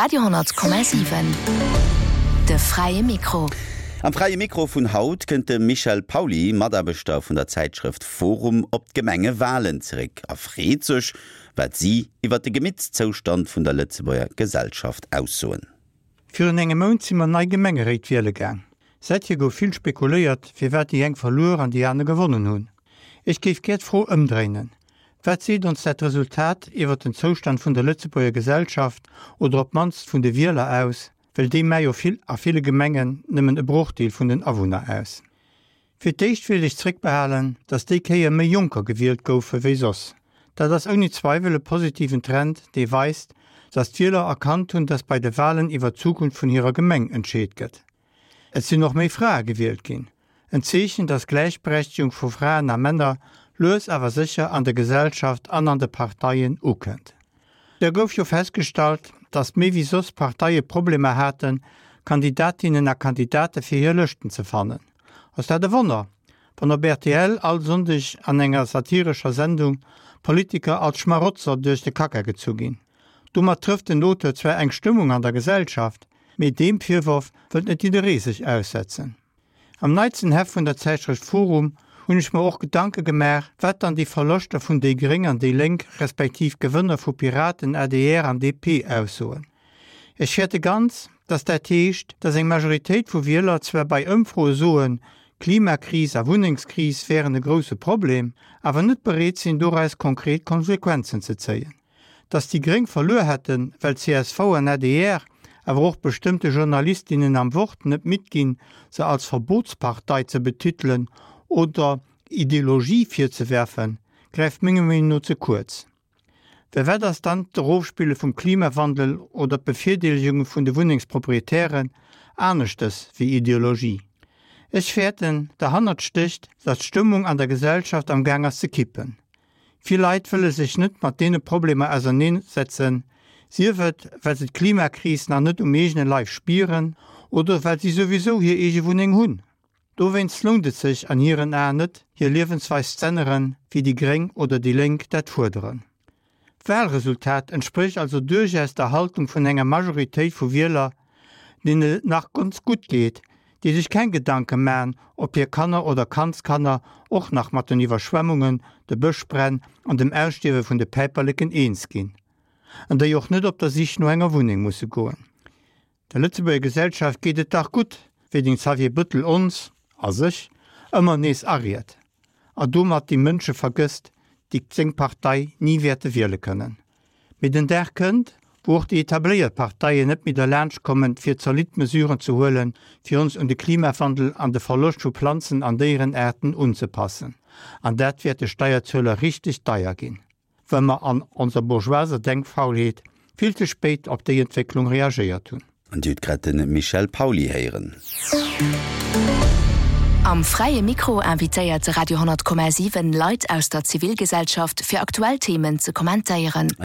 Radio 10,7 De fräie Mikro. Am Fräie Mikro vun haut kënnt de Michel Pauly, Mataarbechter vun der Zäitschrëft Forum, op d'Gemengewalen zeréck a freet sech, wat si iwwer de Gemittszoustand vun der Lëtzebuerger Gesellschaft aussoen. Virun engem Mount si mer nei Gemengeréit wiele gaang. Säithier gouf vill spekuléiert, firwat déi eng verluer an déi aner gewonnen hunn. Ech géif gär d'Fro ëmdréinen, Wat seet ons dat Resultat iwwert den Zoustand vun der Lëtzebuerger Gesellschaft oder op d'mannst vun de Wieler aus, well déi mä jo vill a ville Gemengen nëmmen e Brochdeel vun den Awunner aus. Fir d'éischt wéilt ech zréckbehalen, datt déi Kéier méi Jonker gewielt goufe wéi soss. Dat ass ouni Zweiwel e positiven Trend, dee weist, datt d'Wieler erkannt hunn, datt bei de Walen iwwer d'Zukunft vun hirer Gemeng entscheet gëtt. Et sinn och méi Frae gewielt ginn, en Zeechen, datt d'Gläichberechtegung vu Fraen a Männer lues awer sécher an der Gesellschaft an an de Parteien ukënnt. Da gouf jo festgestallt, datt méi wéi soss Parteie Problemer haten, Kandidatinnen a Kandidate fir hir Lëschten ze fannen. Ass dat e Wonner, wann op rtl all Sonndeg an enger satirescher Sendung Politiker als Schmarotzer duerch de Kacka gezu ginn? Domat trëfft den Auteur zwar eng Stëmmung an der Gesellschaft, mee deem Virworf wëllt net jidderee sech aussetzen. Am neitsten Heft vun der Zäitschrëft forum hunn ech mer och Gedanke gemaach, wat dann déi Verloschter vun déi Gréng an déi Lénk, respektiv Gewënner vu Piraten, adr an DP aussoen. Ech fäerte ganz, datt dat heescht, datt eng Majoritéit vu Wieler zwar bei Ëmfroe soen, Klimakris a Wunnengskris wären e grousse Problem, awer net bereet sinn doraus konkret Konsequenzen ze zéien. Datt déi Gréng verluer hätten, well csv an adr, awer och bestëmmte Journalistinnen am Wort net midd ginn, se als Verbotspartei ze betitelen oder Ideologie virzewerfen, gräift menger Meenung no ze kuerz. Well wat ass dann d'Erofspille vum Klimawandel oder d'Bevirdeelegung vun de Wunnengsproprietären aneschtes wéi Ideologie? Ech fäerten, derhannert stécht, datt d'Stëmmung an der Gesellschaft am Gaang ass ze kippen. Vill Leit wëlle sech net mat deene Problemer auserneen setzen, sief et well se d'Klimakris nach net um eegene Leif spieren oder well si souwisou hir eege Wunneng hunn. Dowéinst lount et sech an hiren Aen net, hir Liewensweis z'änneren, wéi déi Gréng oder déi Lénk dat fuerderen. D'Wahlresultat entsprécht also duerchaus der Haltung vun enger Majoritéit vu Wieler, deenen et nach ganz gutt geet, déi sech keng Gedanke man, ob hir Kanner oder Kandskanner och nach mat den Iwwerschwemmungen, de Bëschbränn an dem Ausstierwe vun de Päiperleken eens ginn, an déi och net op der Sich no enger Wunneng musse goen. Der Lëtzebuerger Gesellschaft geet et dach gutt, wéi den Xavier Bëttel ons, a sech, ëmmer nees ariet, a domat déi Mënsche vergësst, déi seng Partei ni wäerte wiele kënnen. Mee den Dag kënnt, wou och déi etabléiert Parteien net méi derlaanscht kommen, fir zolidd Mesuren ze huelen, fir ons un de Klimawandel an de Verloscht vu Planzen an Déierenaarten unzepassen. An dat wäert de Steierzueler richteg deier ginn, well mer an onser bourgeoiser Denkfaulheet vill ze spéit op déi Entwécklung reagéiert hunn. An Dir hutt grad de Michel Pauly héieren. Am Fräie Mikro invitéiert de Radio 10,7 Leit aus der Zivilgesellschaft fir aktuell Themen ze kommentéieren.